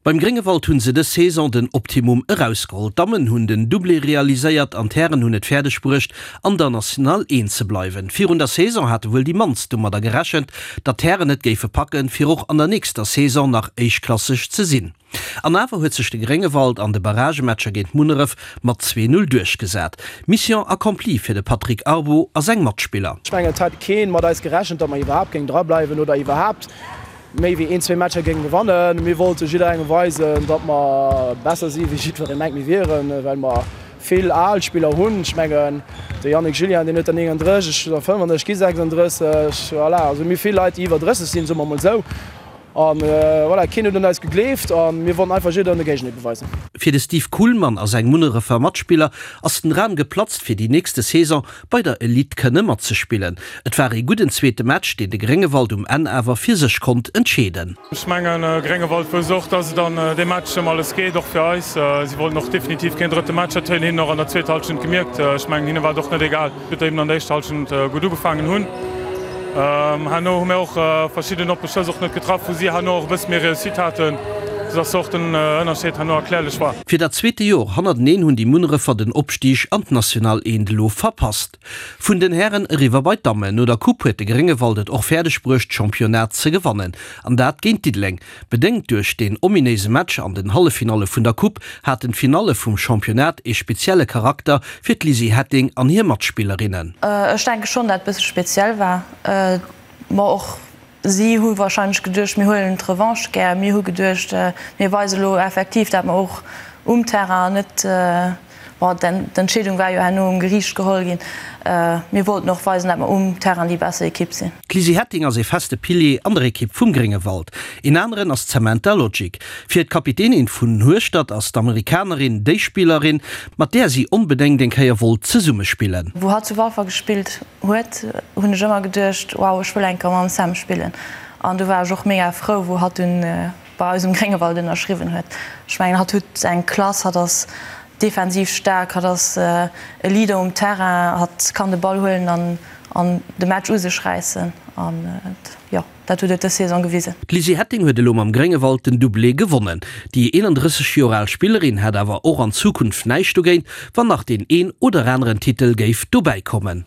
Beim Gréngewald hunn se dës Saison den Optimum erausgeholl. D'Dammen hunn den Doublé realiséiert an d'Hären hunn et fäerdeg bruecht an der National 1 ze bleiwen. Virun der Saison hate wuel déi mannst domadder gerechent, datt d'Hären et géife packen, fir och an der nächster Saison nach éischtklasseg ze sinn. An awer huet sech de Gréngewald an de Barragematcher géint Munneref mat 2, 0 duerchgesat. Mission accomplie fir de Patrick Arbo a seng Matspiller. Ech mengen et hat keen mat eis gerechent, datt mer iwwerhaapt géingen drableiwen oder iwwerhaapt méi wéi een, zwee Matcher géinge gewannen. Mir wollte jidderengem weisen, datt mer besser si wéi jiddweree mengt mir wieren, well mer vill al Spiller hunn. Ech mengen de Yannick Julien, deen huet der 39, ech der 35, gi 36. Voilà, also mir hu vill Leit, déi iwwer 30 sinn, soe mer emol esou. An voilà, keen huet un eis gegleeft a mir wollten einfach jidderengem de Géigendeel beweisen. Fir de Steve Kuhlmann a seng Munnerefer Matspiller ass den Dram geplatzt, fir déi nächste Saison bei der Elite kënne matzespillen. Et war ee gudden zweete Match, deen de Gréngewald um Enn awer fir sech konnt entscheeden. Ech mengen, Gréngewald wousst och, dass et an deem Match ëm alles geet, och fir eis. Si wollten och definitiv keen drëtte Match. Dat huet een hinnen och an der zweeter Hallschent gemierkt. Ech mengen, hinne war et och net egal, wéi mir eben an der éischter Hallschent gutt ugefaangen hunn. Herno hu mir och verschidden oppe Schëss och net getraff, wou si herno och e bësse méi Réussite haten, soudass och den Ënnerscheed herno erklärlech war. Fir dat zweete Jor hannerteneen hunn déi Munnerefer den Opstig an d'National Eent elo verpasst. Vun den Hären eriwwer bei d'Dammen. No der Coupe huet de Gréngewald et och fäerdeg bruecht d'Championnat ze gewannen, an dat géint Diddeleng. Bedéngt duerch deen ominéise Match an den Halleffinalle vun der Coupe haten d'Finalle vum Championnat ee spezielle Charakter fir d'Lizzy Hetting an hir Matspillerinnen. Ech denke schonn, dat et bësse speziell war. Ma och si hu warscheinlech geduecht, mir huelen d'Revanche gär. Mir hu geduecht, mir weise lo effektiv, dat mer och um Terrain net Bon, d'Entscheedung war jo herno um Geriicht geholl ginn. Mir wollten och weisen, dat mer um Terrain déi besser Ekipp sinn. D'Lizzy Hetting ass ee feste Pilier an der Ekipp vum Gréngewald. Een aneren ass d'Samantha Logic. Fir d'Kapitänin vun Hueschtert ass d'Amerikanerin déi Spillerin, mat där si onbedéngt eng Kéier wollt zesummespillen. Wou hatt zu Walfer gespillt huet, hunn ech ëmmer geduecht, wow, ech wëll eng Kéier mam Sam spillen. An du war ech och mega frou, wou hatt dunn bei eis um Gréngewald ënnerschriwwen huet. Ech mengen, hatt huet eng Klass, hatt ass defensiv staark, hatt ass e Leader um Terrain, hatt kann de Ball huelen an an de Match u sech räissen an jo, dat huet et dës Saison gewisen. D'Lizzy Hetting huet elo mam Gréngewald den Doublé gewonnen. Déi 31 Joer al Spillerin hätt awer och an Zukunft näischt dogéint, wann nach deen een oder aneren Titel géif dobäi kommen.